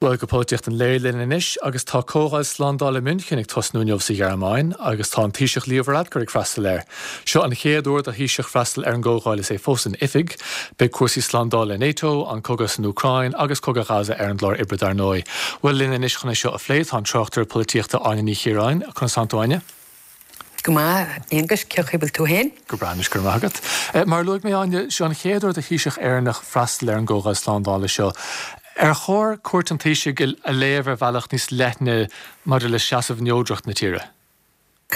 Bhuel, go polaitíocht an lae linn anois agus tá Comhdháil Slándála München ag tosnú inniu sa Ghearmáin agus tá an Taoiseach Leo Varadkar ag freastal air. Seo an chéad uair do Thaoiseach freastal ar an gcomhdháil is é fós in oifig. Beidh cúrsaí slándála NATO, an cogadh san Úcráin agus cogadh Ghaza ar an gclár oibre dar ndóigh. Bhuel, linn anois chun é seo a phlé tá an tráchtaire polaitíochta Áine Ní Chiaráin. Conas tánn tú, Áine? Go maith, a Aonghuis, cén chaoi a bhfuil tú féin? Go breá anois, go raibh maith agat. Mar a luaigh mé, Áine, seo an chéad uair do Thaoiseach Éireannach freastal ar an gComhdháil Slándála seo. Ar chóir cuairt an Taoisigh a léamh ar bhealach níos leithne maidir le seasamh neodracht na tíre?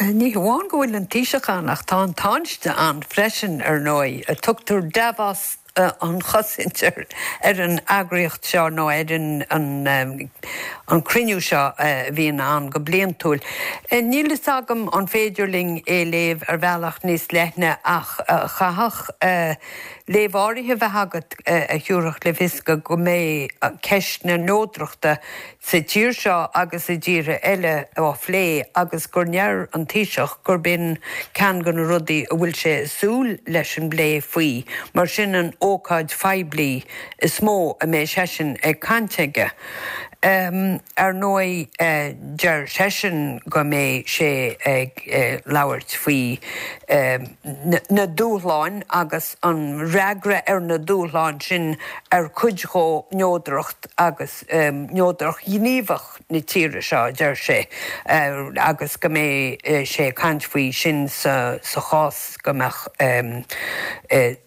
Ní hamháin go bhfuil an Taoiseach ann ach tá an Tánaiste ann freisin, ar ndóigh. Tugtar Davos an chosaint ar an eagraíocht seo nó ar an cruinniú seo a bhíonn ann go bliantúil. Níl fhios agam an féidir linn é léamh ar bhealach níos leithne ach chaithfeadh léamh áirithe bheith agat a thiúrfadh le fios go mbeidh ceist na neodrachta sa tír seo agus i dtíortha eile á phlé agus gur ndeir an Taoiseach gurb in ceann de na rudaí a bhfuil sé ag súil leis an bplé faoi mar sin an ócáid phoiblí is mó a mbeidh seisean ag caint aige. Ar ndóigh deir seisean go mbeidh sé ag labhairt faoi na dúshláin agus an fhreagra ar na dúshláin sin ar cuid dhó neodracht agus neodracht ghníomhach na tíre seo, a deir sé, agus go mbeidh sé ag caint faoi sin sa chás go mbeadh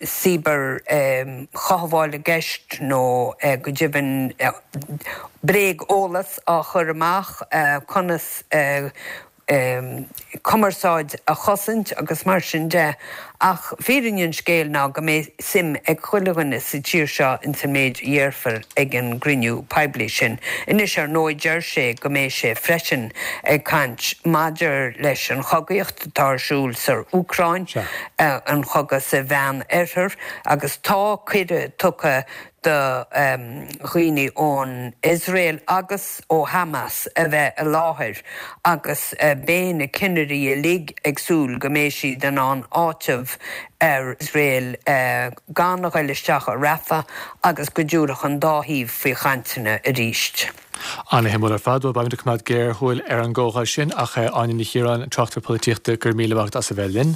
cibear-chothabháil i gceist nó go deimhin bréag-eolas á chur amach, conas cumarsáid a chosaint agus mar sin de ach fírinne an scéil ná go mbeidh suim ag chuile dhuine sa tír seo ins an méid a dhéarfar ag an gcruinniú poiblí sin. Anois ar ndóigh deir sé go mbeidh sé freisin ag caint maidir leis an chogaíocht atá ar siúl sa Úcráin, an chogadh sa Mheán Oirthear agus tá cuireadh tugtha do dhaoine ón Iosrael agus ó Hamas a bheith i láthair agus beidh na cinnirí uilig ag súil go mbeidh siad in ann áiteamh ar Iosrael gan a ghoil isteach i Rafah agus go dtiúrfadh an dá thaobh faoi chainteanna arís. Ana-shuimiúil ar fad. Bhuel, beimid ag coimeád géarshiúil ar an gcomhdháil sin ach Áine Ní Chiaráin, an tráchtaire polaitíochta, go raibh míle maith agat as a bheith linn.